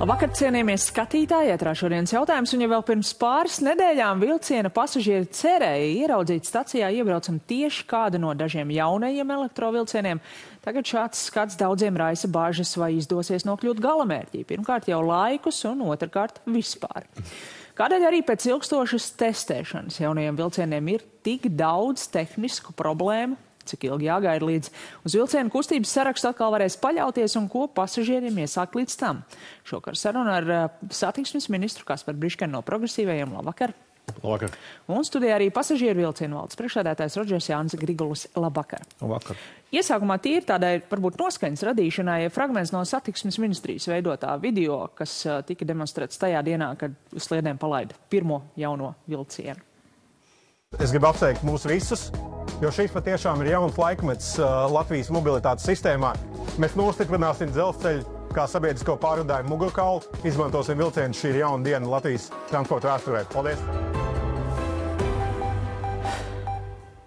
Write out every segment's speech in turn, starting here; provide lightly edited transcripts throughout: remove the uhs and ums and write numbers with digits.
Labvakar, cienījamies skatītāji, ētrā šodienas jautājums, un ja vēl pirms pāris nedēļām vilciena pasažieri cerēja ieraudzīt stacijā iebraucam tieši kādu no dažiem jaunajiem elektrovilcieniem, tagad šāds skats daudziem raisa bāžas, vai izdosies nokļūt galamērķī. Pirmkārt jau laikus un otrkārt vispār. Kādēļ arī pēc ilgstošas testēšanas jaunajiem vilcieniem ir tik daudz tehnisku problēmu? Cik ilgi jāgaida līdz uz vilcienu kustības sarakstu atkal varēs paļauties un ko pasažieriem iesākt līdz tam. Šokar saruna ar satiksmes ministru Kasparu Briškenu no Progresīvajiem. Labvakar! Labvakar! Un studijā arī pasažieru vilcienu valdes priekšsēdētājs Rodžers Jānis Grigulis. Labvakar! Labvakar! Iesākumā tīri tādai varbūt noskaņas radīšanai fragments no satiksmes ministrijas veidotā video, kas tika demonstrēts tajā dienā, kad uz sliedēm palaida pirmo jauno vilcienu. Es gribu apsveikt mūs visus, jo šis patiešām ir jauns laikmets Latvijas mobilitātes sistēmā. Mēs nostiprināsim dzelzceļu kā sabiedrisko pārvadājumu mugurkaulu, izmantosim vilcienus. Šī ir jauna diena Latvijas transporta vēsturē. Paldies!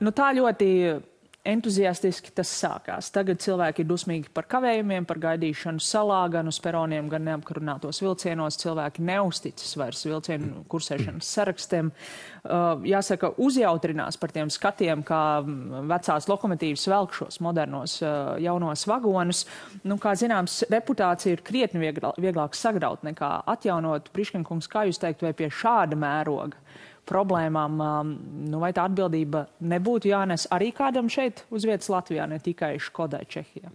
Nu tā ļoti entuziastiski tas sākās. Tagad cilvēki ir dusmīgi par kavējumiem, par gaidīšanu salā, gan uz peroniem, gan neapkarunātos vilcienos. Cilvēki neusticas vairs vilcienu kursēšanas sarakstiem. Jāsaka, uzjautrinās par tiem skatiem, kā vecās lokomotīvas velk šos modernos jaunos vagonus. Nu, kā zināms, reputācija ir krietni vieglāk sagraut nekā atjaunot. Briškenkungs, kā jūs teikt, vai pie šāda mēroga problēmām, vai tā atbildība nebūtu jānes arī kādam šeit uz vietas Latvijā, ne tikai Škodai Čehijā?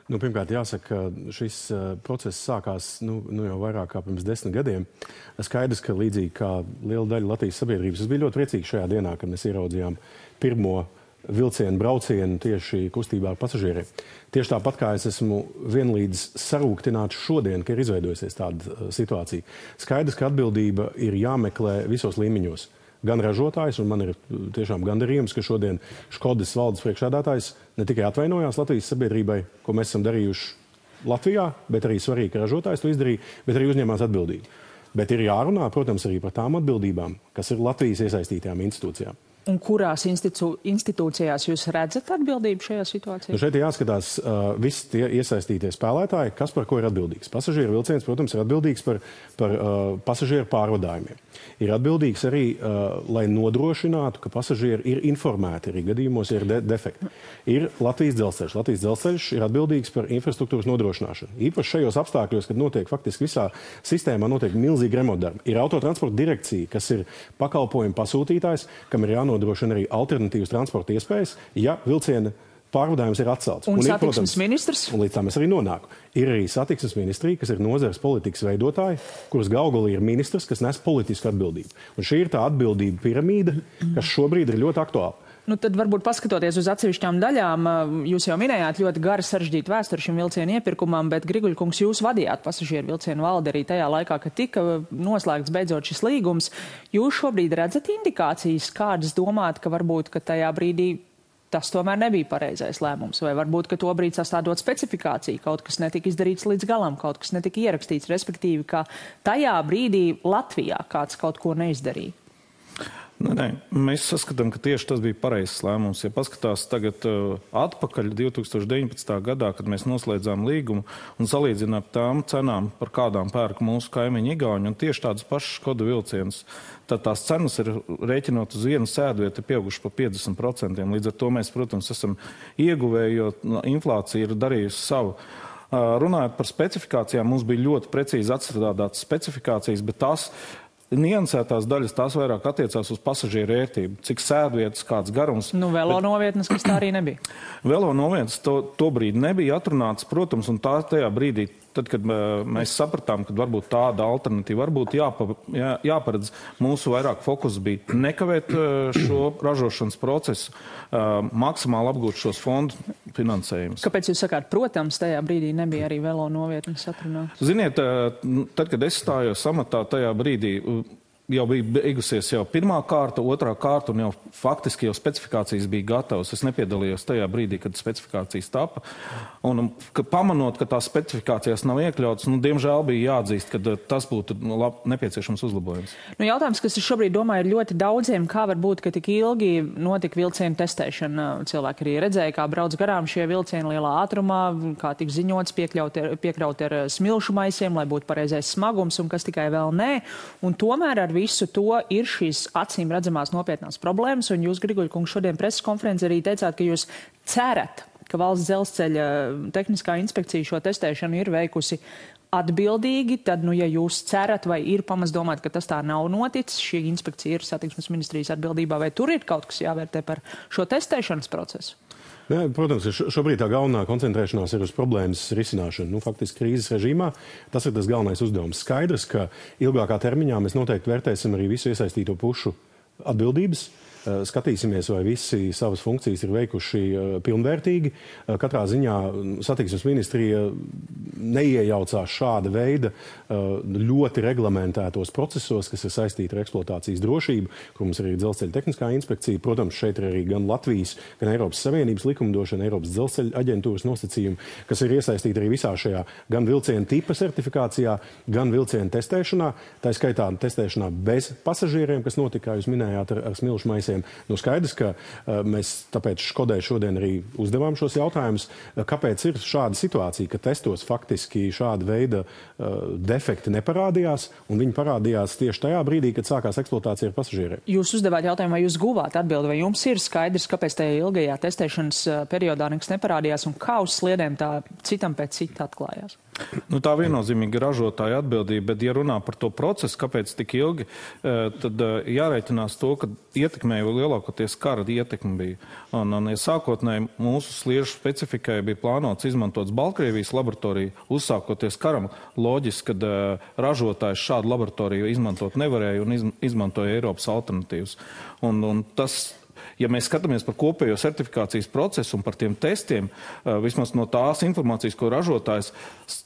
Pirmkārt, jāsaka, ka šis process sākās jau vairāk kā pirms 10 gadiem. Skaidrs, ka līdzīgi kā liela daļa Latvijas sabiedrības, es biju ļoti priecīgs šajā dienā, kad mēs ieraudzījām pirmo vilcienu braucienu tieši kustībā ar pasažieriem. Tieši tāpat kā es esmu vienlīdz sarūktināts šodien, ka ir izveidojusies tāda situācija. Skaidrs, ka atbildība ir jāmeklē visos līmeņos. Gan ražotājs, un man ir tiešām gandarījums, ka šodien Škodas valdes priekšsēdētājs ne tikai atvainojās Latvijas sabiedrībai, ko mēs esam darījuši Latvijā, bet arī svarīgi, ka ražotājs to izdarīja, bet arī uzņēmās atbildību. Bet ir jārunā, protams, arī par tām atbildībām, kas ir Latvijas iesaistītajām institūcijām. Un kurās institūcijās jūs redzat atbildību šajā situācijā? Šeit ir jāskatās visi tie iesaistītie spēlētāji, kas par ko ir atbildīgs. Pasažieru vilciens, protams, ir atbildīgs par pasažieru pārvadājumiem. Ir atbildīgs arī, lai nodrošinātu, ka pasažieri ir informēti arī gadījumos, ir defekti. Ir Latvijas dzelzceļš. Latvijas dzelzceļš ir atbildīgs par infrastruktūras nodrošināšanu. Īpaši šajos apstākļos, kad notiek faktiski visā sistēmā notiek milzīgi remontdarbi. Ir autotransporta direkcija, kas ir pakalpojumu pasūtītājs, kam ir jānodrošina arī alternatīvas transporta iespējas, ja vilciena pārvadājums ir atcelts. Un satiksmes ministrs? Un līdz tam es arī nonāku. Ir arī satiksmes ministrija, kas ir nozares politikas veidotāji, kuras galvgalī ir ministrs, kas nes politisku atbildību. Un šī ir tā atbildība piramīda, kas šobrīd ir ļoti aktuāla. Nu, tad varbūt paskatoties uz atsevišķām daļām, jūs jau minējāt ļoti garu sarežģītu vēsturi šim vilcienu iepirkumam, bet Griguļkungs, jūs vadījāt pasažieru vilcienu valdi arī tajā laikā, kad tika noslēgts beidzot šis līgums. Jūs šobrīd redzat indikācijas, kādas domāt, ka varbūt, ka tajā brīdī tas tomēr nebija pareizais lēmums, vai varbūt, ka to brīdi sastādot specifikāciju, kaut kas netika izdarīts līdz galam, kaut kas netika ierakstīts, respektīvi, ka tajā brīdī Latvijā kāds kaut ko neizdarīja? Nē, mēs saskatām, ka tieši tas bija pareizs lēmums. Ja paskatās tagad atpakaļ 2019. gadā, kad mēs noslēdzām līgumu un salīdzinām tām cenām, par kādām pērka mūsu kaimiņi Igauni, un tieši tādas pašas Škoda vilcienus, tad tās cenas ir rēķinot uz vienu sēdvietu pieauguši pa 50%. Līdz ar to mēs, protams, esam ieguvēji, jo inflācija ir darījusi savu. Runājot par specifikācijām, mums bija ļoti precīzi atstrādātas specifikācijas, bet tās niansētās daļas, tās vairāk attiecās uz pasažieru ērtību. Cik sēdvietas, kāds garums. Velo novietnes, kas tā arī nebija. Velo novietnes to brīdi nebija atrunāts, protams, un tā tajā brīdī, tad, kad mēs sapratām, ka varbūt tāda alternatīva varbūt jāparedz, mūsu vairāk fokus bija nekavēt šo ražošanas procesu, maksimāli apgūt šos fondu finansējumus. Kāpēc jūs sakāt, protams, tajā brīdī nebija arī velo novietnes atrunāts? Ziniet, tad, kad es stājos amatā tajā brīdī, jau bija beigusies jau pirmā kārta, otrā kārta, un jau faktiski jau specifikācijas bija gatavas. Es nepiedalījos tajā brīdī, kad specifikācijas tapa. Un pamanot, ka tās specifikācijas nav iekļautas, diemžēl bija jāatzīst, ka tas būtu nepieciešams uzlabojums. Jautājums, kas es šobrīd domāju, ir ļoti daudziem, kā var būt, ka tik ilgi notika vilcienu testēšana. Cilvēki arī redzēja, kā brauc garām šie vilcieni lielā ātrumā, kā tik ziņots piekraut ar smilšu maisiem, lai būtu pareizais smagums un kas tikai vēl nē. Un tomēr ar visu to ir šīs acīm redzamās nopietnās problēmas, un jūs, Griguļa kungs, šodien preses konferencē arī teicāt, ka jūs cerat, ka Valsts dzelzceļa tehniskā inspekcija šo testēšanu ir veikusi atbildīgi, tad, ja jūs cerat vai ir pamats domāt, ka tas tā nav noticis, šī inspekcija ir satiksmes ministrijas atbildībā, vai tur ir kaut kas jāvērtē par šo testēšanas procesu? Jā, protams, šobrīd tā galvenā koncentrēšanās ir uz problēmas risināšanu. Faktiski krīzes režīmā tas ir tas galvenais uzdevums. Skaidrs, ka ilgākā termiņā mēs noteikti vērtēsim arī visu iesaistīto pušu atbildības. Skatīsimies, vai visi savas funkcijas ir veikuši pilnvērtīgi. Katrā ziņā satiksmes ministrija neiejaucās šāda veida ļoti reglamentētos procesos, kas ir saistīti ar eksploatācijas drošību, kur mums ir arī dzelzceļa tehniskā inspekcija. Protams, šeit ir arī gan Latvijas, gan Eiropas Savienības likumdošana, Eiropas dzelzceļa aģentūras nosacījumi, kas ir iesaistīti arī visā šajā gan vilcienu tipa certifikācijā, gan vilcienu testēšanā, tā skaitā testēšanā bez pasažieriem, kas notika, kā jūs minējāt, ar smilšu maisiem. Skaidrs, ka mēs tāpēc Škodai šodien arī uzdevām šos jautājumus, kāpēc ir šāda situācija, ka testos faktiski šāda veida defekti neparādījās, un viņi parādījās tieši tajā brīdī, kad sākās eksploatācija ar pasažieriem. Jūs uzdevāt jautājumu, vai jūs guvāt atbildi, vai jums ir skaidrs, kāpēc tajā ilgajā testēšanas periodā nekas neparādījās, un kā uz sliedēm tā citam pēc cita atklājās? Tā viennozīmīgi ražotāja atbildība, bet ja runā par to procesu, kāpēc tik ilgi, tad jārēķinās to, ka ietekmēja lielākoties kara ietekme bija. Un ja sākotnēji mūsu sliežu specifikai bija plānots izmantots Baltkrievijas laboratoriju, uzsākoties karam, loģiski, kad ražotājs šādu laboratoriju izmantot nevarēja un izmantoja Eiropas alternatīvas. Un tas, ja mēs skatāmies par kopējo certifikācijas procesu un par tiem testiem, vismaz no tās informācijas, ko ražotājs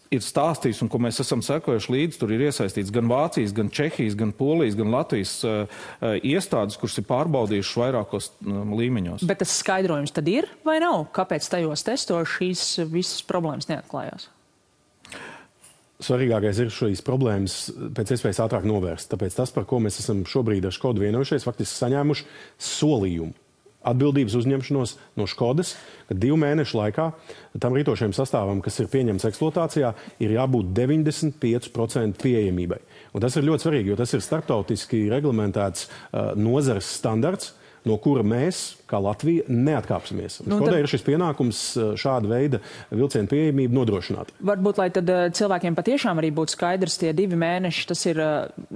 ir stāstījis un ko mēs esam sekojuši līdzi, tur ir iesaistīts gan Vācijas, gan Čehijas, gan Polijas, gan Latvijas iestādes, kuras ir pārbaudījušas vairākos līmeņos. Bet tas skaidrojums tad ir vai nav? Kāpēc tajos testos šīs visas problēmas neatklājās? Svarīgākais ir šīs problēmas pēc iespējas ātrāk novērst. Tāpēc tas, par ko mēs esam šobrīd ar Škodu vienojušies, faktiski saņēmuši solījumu. Atbildības uzņemšanos no Škodas, ka 2 mēnešu laikā tam rītošajam sastāvam, kas ir pieņemts eksploatācijā, ir jābūt 95% pieejamībai. Un tas ir ļoti svarīgi, jo tas ir starptautiski reglamentēts nozares standarts, no kura mēs, kā Latvija, neatkāpsimies. Škodai ir šis pienākums šāda veida vilcienu pieejamību nodrošināt. Varbūt, lai tad cilvēkiem patiešām arī būtu skaidrs, tie 2 mēneši, tas ir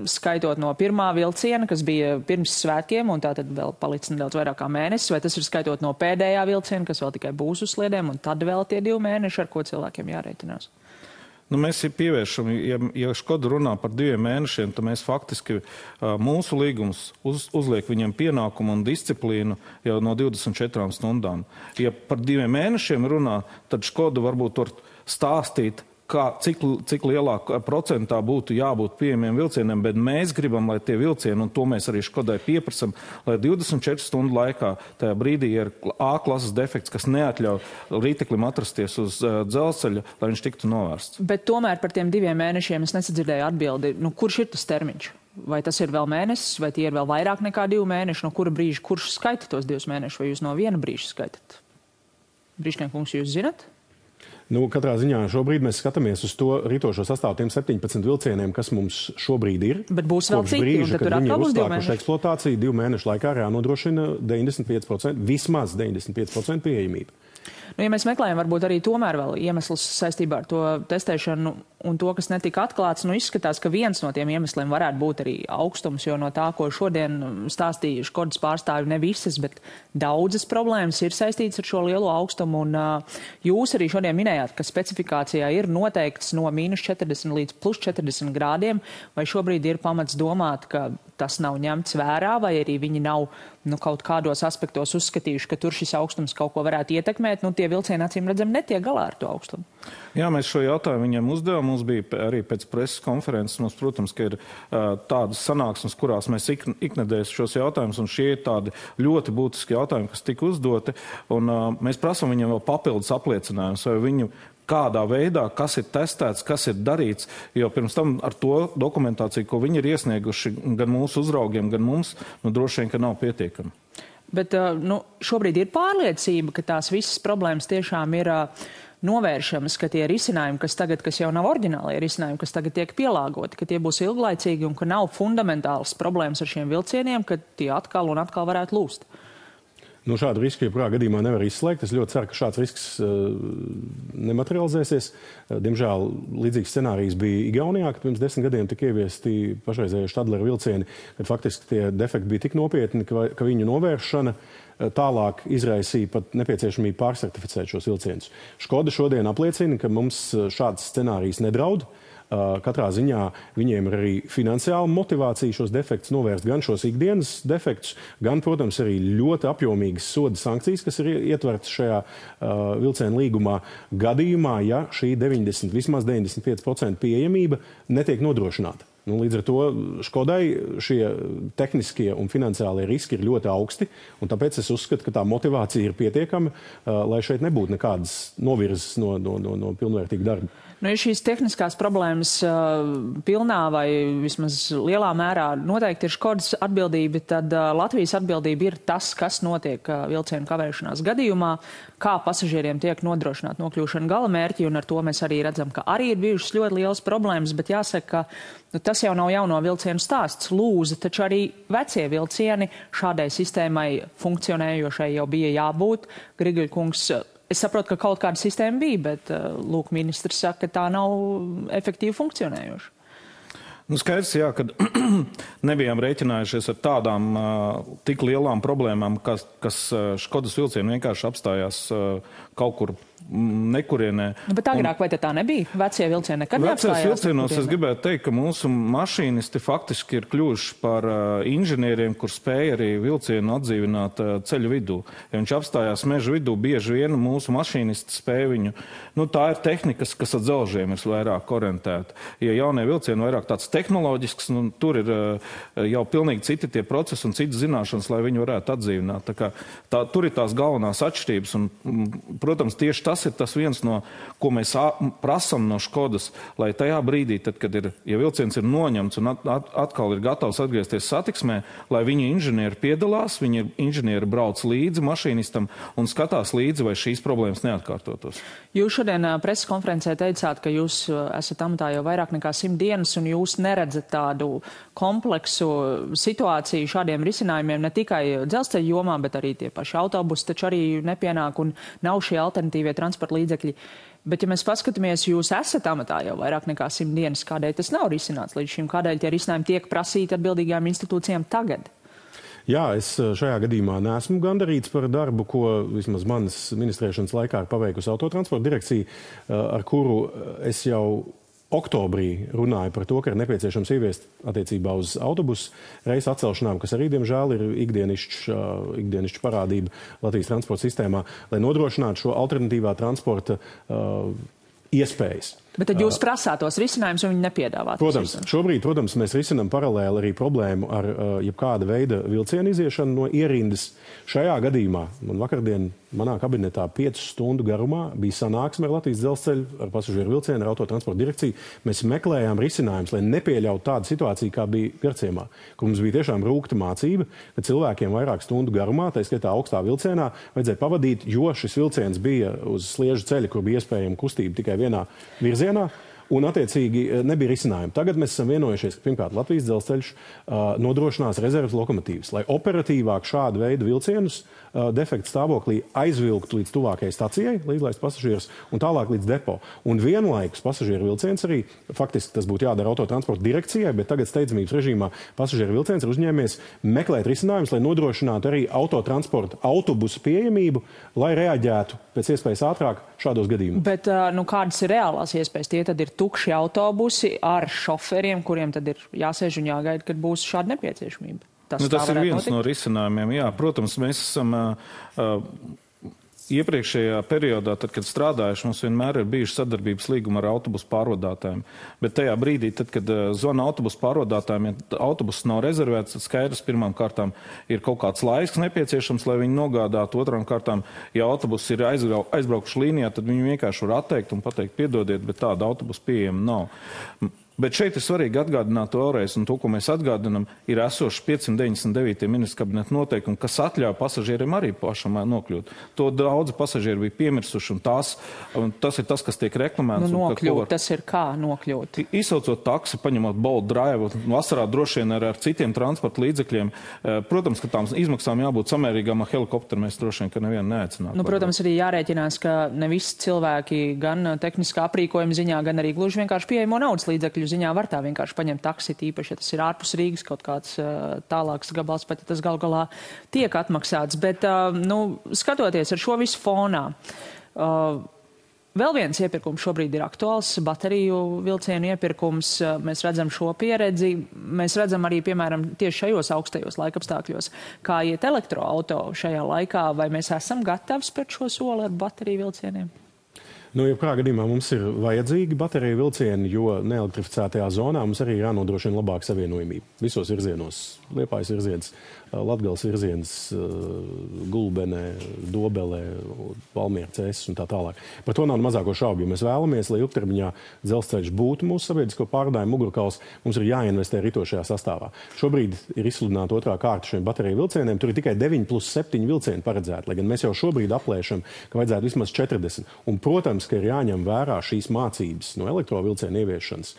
skaitot no pirmā vilciena, kas bija pirms svētkiem, un tā tad vēl palicis nedaudz vairāk kā mēnesis, vai tas ir skaitot no pēdējā vilciena, kas vēl tikai būs uz sliedēm, un tad vēl tie 2 mēneši, ar ko cilvēkiem jārēķinās? Mēs pievēršam, ja Škoda runā par 2 mēnešiem, tad mēs faktiski mūsu līgums uzliek viņiem pienākumu un disciplīnu jau no 24 stundām. Ja par 2 mēnešiem runā, tad Škoda varbūt var stāstīt, cik lielā procentā būtu jābūt pieejamiem vilcieniem, bet mēs gribam, lai tie vilcieni, un to mēs arī Škodai pieprasam, lai 24 stundu laikā tajā brīdī ir A klases defekts, kas neatļauj rīteklim atrasties uz dzelzceļa, lai viņš tiktu novērsts. Bet tomēr par tiem 2 mēnešiem es nesadzirdēju atbildi. Kurš ir tas termiņš? Vai tas ir vēl mēnesis, vai tie ir vēl vairāk nekā 2 mēneši? No kura brīža, kurš skaita tos 2 mēnešus, vai jūs no viena brīža skaitat? Brīšniekungs, jūs zinat? Katrā ziņā šobrīd mēs skatāmies uz to rītošo sastāvu tiem 17 vilcieniem, kas mums šobrīd ir. Bet būs vēl citi, brīža, un tad tur atkal būs 2 mēneši. Eksploatācija 2 mēnešu laikā jānodrošina 95%, vismaz 95% pieejamība. Ja mēs meklējam varbūt arī tomēr vēl iemeslus saistībā ar to testēšanu un to, kas netika atklāts, izskatās, ka viens no tiem iemesliem varētu būt arī augstums, jo no tā, ko šodien stāstīja Škodas pārstāvi, ne visas, bet daudzas problēmas ir saistītas ar šo lielo augstumu. Un jūs arī šodien minējāt, ka specifikācijā ir noteikts no -40 līdz +40 grādiem, vai šobrīd ir pamats domāt, ka tas nav ņemts vērā, vai arī viņi nav kaut kādos aspektos uzskatījuši, ka tur šis augstums kaut ko varētu ietekmēt, tie vilcieni acīm redzam netiek galā ar to augstumu. Jā, mēs šo jautājumu viņiem uzdevām, mums bija arī pēc preses konferences. Mums, protams, ka ir tādas sanāksmes, kurās mēs iknedēļas šos jautājumus, un šie ir tādi ļoti būtiski jautājumi, kas tika uzdoti. Un mēs prasam viņam vēl papildus apliecinājumus, vai viņu kādā veidā, kas ir testēts, kas ir darīts, jo pirms tam ar to dokumentāciju, ko viņi ir iesnieguši gan mūsu uzraugiem, gan mums, droši vien, ka nav pietiekami. Bet šobrīd ir pārliecība, ka tās visas problēmas tiešām ir novēršamas, ka tie risinājumi, kas jau nav oriģinālie risinājumi, kas tagad tiek pielāgoti, ka tie būs ilglaicīgi un ka nav fundamentāls problēmas ar šiem vilcieniem, ka tie atkal un atkal varētu lūst. Šādu risku jebkurā gadījumā nevar izslēgt. Es ļoti ceru, ka šāds risks nematerializēsies. Diemžēl līdzīgs scenārijs bija Igaunijā, kad pirms 10 gadiem tika ieviesti pašreizējie Stadlera vilcieni, kad faktiski tie defekti bija tik nopietni, ka viņu novēršana tālāk izraisīja pat nepieciešamību pārsertificēt šos vilcienus. Škoda šodien apliecina, ka mums šāds scenārijs nedraud. Katrā ziņā viņiem ir arī finansiāla motivācija šos defektus novērst, gan šos ikdienas defektus, gan, protams, arī ļoti apjomīgas soda sankcijas, kas ir ietvertas šajā vilcienu līgumā gadījumā, ja šī vismaz 95% pieejamība netiek nodrošināta. Līdz ar to Škodai šie tehniskie un finansiālie riski ir ļoti augsti, un tāpēc es uzskatu, ka tā motivācija ir pietiekama, lai šeit nebūtu nekādas novirzes no pilnvērtīga darba. Ja šīs tehniskās problēmas pilnā vai vismaz lielā mērā noteikti ir Škodas atbildība, tad Latvijas atbildība ir tas, kas notiek vilcienu kavēšanās gadījumā, kā pasažieriem tiek nodrošināt nokļūšana galamērķi, un ar to mēs arī redzam, ka arī ir bijušas ļoti lielas problēmas, bet jāsaka, ka tas jau nav jauno vilcienu stāsts. Lūza, taču arī vecie vilcieni šādai sistēmai funkcionējošai jau bija jābūt. Grigļkungs, es saprotu, ka kaut kāda sistēma bija, bet lūk, ministrs saka, ka tā nav efektīvi funkcionējoša. Skaidrs, jā, ka nebijām rēķinājušies ar tādām tik lielām problēmām, kas Škodas vilcienu vienkārši apstājās kaut kur nekurienē. Bet agrāk vai tā nebija? Vecie vilcieni nekad neapstājās? Vecajos vilcienos es gribētu teikt, ka mūsu mašīnisti faktiski ir kļuvuši par inženieriem, kur spēja arī vilcienu atdzīvināt ceļu vidū. Ja viņš apstājās meža vidū, bieži vien mūsu mašīnisti spēja viņu. Tā ir tehnikas, kas ar dzelžiem ir vairāk orientēta. Ja jaunie vilcieni vairāk tāds tehnoloģisks, tur ir jau pilnīgi citi tie procesi un citas zināšanas, lai viņu varētu atdzīvināt. Tur ir tās galvenās atšķirības un, protams, tieši tas ir tas viens no, ko mēs prasam no Škodas, lai tajā brīdī, tad, kad ja vilciens ir noņemts un atkal ir gatavs atgriezties satiksmē, lai viņu inženieri piedalās, viņi inženieri brauc līdzi mašīnistam un skatās līdzi, vai šīs problēmas neatkārtotos. Jūs šodien preses konferencē teicāt, ka jūs esat amatā jau vairāk nekā 100 dienas un jūs neredzat tādu kompleksu situāciju šādiem risinājumiem ne tikai dzelzceļa jomā, bet arī tie paši autobusi taču arī nepienāk un nav šie alternatīvie transporta līdzekļi. Bet, ja mēs paskatāmies, jūs esat amatā jau vairāk nekā 100 dienas, kādēļ tas nav risināts līdz šim, kādēļ tie risinājumi tiek prasīti atbildīgajām institūcijām tagad? Jā, es šajā gadījumā neesmu gandarīts par darbu, ko vismaz manas ministrēšanas laikā ir paveikusi autotransporta direkcija, ar kuru es jau oktobrī runāju par to, ka ir nepieciešams ieviest attiecībā uz autobusu reisu atcelšanām, kas arī, diemžēl, ir ikdienišķa parādība Latvijas transporta sistēmā, lai nodrošinātu šo alternatīvā transporta iespējas. Bet tad jūs prasāt tos risinājumus, un viņi nepiedāvā. Šobrīd, protams, mēs risinām paralēli arī problēmu ar jebkāda veida vilcienu iziešanu no ierindas. Šajā gadījumā man vakardien manā kabinetā 5 stundu garumā bija sanāksme ar Latvijas dzelzceļu, ar pasažieru vilcienu, ar autotransporta direkciju. Mēs meklējām risinājumus, lai nepieļautu tādu situāciju, kā bija Garciemā, kur mums bija tiešām rūkta mācība, ka cilvēkiem vairāk stundu garumā, tā skaitā augstā vilcienā, vajadzēja pavadīt, jo šis vilciens bija uz sliežu ceļa, kur bija iespējama kustība tikai vienā virzienā. Un, attiecīgi, nebija risinājumi. Tagad mēs esam vienojušies, ka pirmkārt Latvijas dzelzceļš nodrošinās rezerves lokomotīvas, lai operatīvāk šādu veidu vilcienus defekta stāvoklī aizvilktu līdz tuvākajai stacijai, līdz pasažierus un tālāk līdz depo. Un vienlaikus pasažieru vilciens arī, faktiski tas būtu jādara autotransporta direkcijai, bet tagad steidzamības režīmā pasažieru vilciens ir uzņēmies meklēt risinājumus, lai nodrošinātu arī autotransporta autobusu pieejamību, lai reaģētu pēc iespējas ātrāk šādos gadījumos. Bet kādas ir reālās iespējas? Tie tad ir tukši autobusi ar šoferiem, kuriem tad ir jāsēž un jāgaida, kad būs šāda nepieciešamība. Tas ir viens no risinājumiem. Jā, protams, mēs esam iepriekšējā periodā, tad, kad strādājuši, mums vienmēr ir bijuši sadarbības līguma ar autobusu pārvadātājiem. Bet tajā brīdī, tad, kad zvana autobusu pārvadātājiem, ja autobuss nav rezervēts, tad skaidrs pirmām kārtām ir kaut kāds laiks nepieciešams, lai viņi nogādātu. Otrām kārtām, ja autobuss ir aizbraukuši līnijā, tad viņi vienkārši var atteikt un pateikt, piedodiet, bet tāda autobusa pieejama nav. Bet šeit ir svarīgi atgādināt vēlreiz, un to, ko mēs atgādinām, ir esošs 599. ministra kabineta noteikumi, kas atļauj pasažieriem arī pašam nokļūt. To daudzi pasažieri bija piemirsuši, un tas ir tas, kas tiek reklamēts. Nokļūt, tas ir kā nokļūt? Izsaucot taksi, paņemot Bolt Drive, vasarā droši vien ar citiem transporta līdzekļiem. Protams, ka tām izmaksām jābūt samērīgām ar helikopteru, mēs droši vien, ka nevienu neaicinātu. Protams, arī jārēķinās, ka ne visi cilvēki gan tehniskā aprīkojuma ziņā, gan arī gluži vienkārši pieejamo naudas līdzekļu ziņā var tā vienkārši paņemt taksi, īpaši, ja tas ir ārpus Rīgas kaut kāds tālāks gabals, pat ja tas gal galā tiek atmaksāts. Bet, skatoties ar šo visu fonā, vēl viens iepirkums šobrīd ir aktuāls, bateriju vilcienu iepirkums. Mēs redzam šo pieredzi. Mēs redzam arī, piemēram, tieši šajos augstajos laikapstākļos, kā iet elektroauto šajā laikā. Vai mēs esam gatavi spērt šo soli ar bateriju vilcieniem? Jebkurā gadījumā mums ir vajadzīgi bateriju vilcieni, jo neelektrificētajā zonā mums arī jānodrošina labāka savienojumība visos virzienos. Liepājas virziens, Latgales virziens, Gulbenē, Dobelē, Valmiera Cēsis un tā tālāk. Par to nav mazāko šaubu, jo mēs vēlamies, lai ilgtermiņā dzelzceļš būtu mūsu sabiedrisko pārvadājumu mugurkauls, mums ir jāinvestē ritošajā sastāvā. Šobrīd ir izsludināta otrā kārta šiem bateriju vilcieniem, tur ir tikai 9+7 vilcieni paredzēti, lai gan mēs jau šobrīd aplēšam, ka vajadzētu vismaz 40. Un, protams, ka ir jāņem vērā šīs mācības no elektrovilcienu ieviešanas.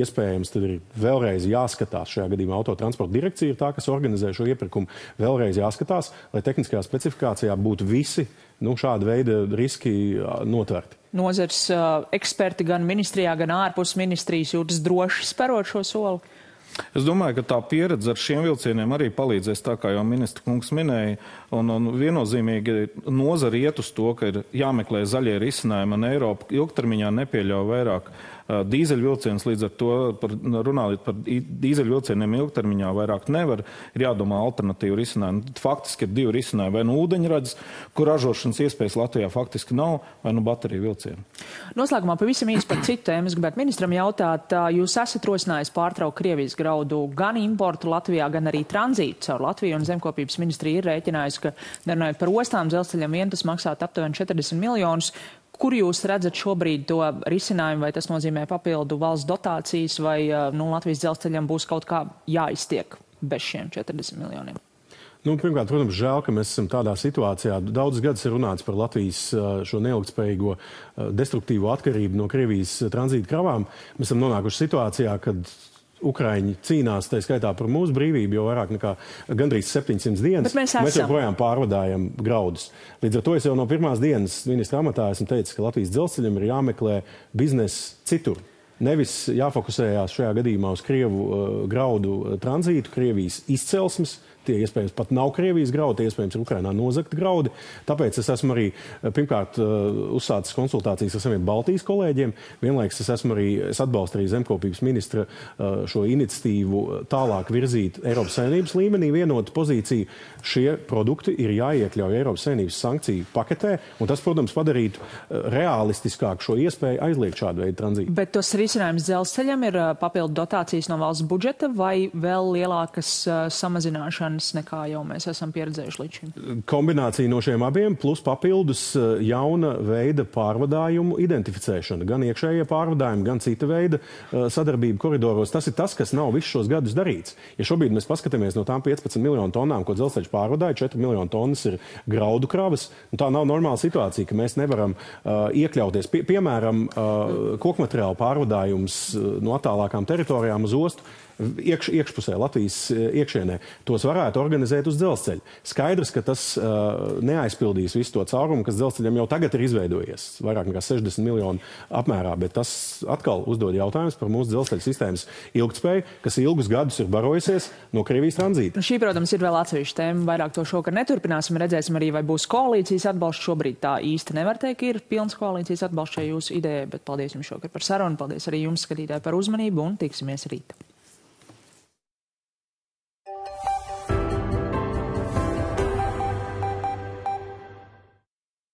Iespējams, tad ir vēlreiz jāskatās, šajā gadījumā autotransporta direkcija ir tā, kas organizē šo iepirkumu, vēlreiz jāskatās, lai tehniskajā specifikācijā būtu visi šāda veida riski notverti. Nozars eksperti gan ministrijā, gan ārpus ministrijas jūtas droši sperot šo soli? Es domāju, ka tā pieredze ar šiem vilcieniem arī palīdzēs, tā kā jau ministra kungs minēja, un viennozīmīgi nozara iet uz to, ka ir jāmeklē zaļie risinājumi, un Eiropa ilgtermiņā nepieļauj vairāk dīzeļvilcienus, līdz ar to runājot par dīzeļvilcieniem ilgtermiņā vairāk nevar, ir jādomā alternatīvu risinājumu. Faktiski ir divi risinājumi, vai ūdeņradis, kur ražošanas iespējas Latvijā faktiski nav, vai bateriju vilcienu. Noslēgumā pavisam īsi par citu tēmu. Es gribētu ministram jautāt, jūs esat rosinājis pārtraukt Krievijas graudu gan importu Latvijā, gan arī tranzītu caur Latviju, un Zemkopības ministrija ir rēķinājusi, ka nerunājot par ostām, dzelzceļam vien tas maksāt aptuveni 40 miljonus. Kur jūs redzat šobrīd to risinājumu, vai tas nozīmē papildu valsts dotācijas, vai Latvijas dzelzceļam būs kaut kā jāiztiek bez šiem 40 miljoniem? Pirmkārt, protams, žēl, ka mēs esam tādā situācijā. Daudzus gadus ir runāts par Latvijas šo neilgtspējīgo destruktīvo atkarību no Krievijas tranzīta kravām. Mēs esam nonākuši situācijā, kad Ukraiņi cīnās, tā skaitā par mūsu brīvību, jau vairāk nekā gandrīz 700 dienas. Mēs joprojām pārvadājam graudus. Līdz ar to es jau no pirmās dienas ministra amatā esmu teicis, ka Latvijas dzelzceļam ir jāmeklē bizness citur. Nevis jāfokusējās šajā gadījumā uz Krievu graudu tranzītu, Krievijas izcelsmes. Tie iespējams pat nav Krievijas graudi, tie iespējams ir Ukrainā nozagti graudi. Tāpēc es esmu arī pirmkārt uzsācis konsultācijas ar saviem Baltijas kolēģiem. Vienlaikus es atbalstu arī Zemkopības ministra šo iniciatīvu tālāk virzīt Eiropas Savienības līmenī vienotu pozīciju. Šie produkti ir jāiekļauj Eiropas Savienības sankciju paketē, un tas, protams, padarītu realistiskāk šo iespēju aizliegt šādu veidu tranzītu. Bet tos risinājums dzelzceļam ir papildu dotācijas no valsts budžeta vai vēl lielākas samazināšanas nekā jau mēs esam pieredzējuši līdz šim? Kombinācija no šiem abiem, plus papildus jauna veida pārvadājumu identificēšana. Gan iekšējie pārvadājumi, gan cita veida sadarbība koridoros. Tas ir tas, kas nav visus šos gadus darīts. Ja šobrīd mēs paskatāmies no tām 15 miljonu tonnām, ko dzelzceļš pārvadāja, 4 miljonu tonnas ir graudu kravas. Tā nav normāla situācija, ka mēs nevaram iekļauties. Piemēram, kokmateriālu pārvadājums no attālākām teritorijām uz ostu. Iekšpusē, Latvijas iekšienē, tos varētu organizēt uz dzelzceļa. Skaidrs, ka tas neaizpildīs visu to caurumu, kas dzelzceļam jau tagad ir izveidojies, vairāk nekā 60 miljonu apmērā, bet tas atkal uzdod jautājums par mūsu dzelzceļa sistēmas ilgtspēju, kas ilgus gadus ir barojusies no Krievijas tranzīta. Šī, protams, ir vēl atsevišķa tēma, vairāk to šokar neturpināsim, redzēsim arī, vai būs koalīcijas atbalsts. Šobrīd tā īsti nevar teikt, ir pilns koalīcijas atbalsts šai jūsu idejai, bet paldies jums šokar par sarunu, paldies arī jums, skatītāji, par uzmanību un tiksimies rīt.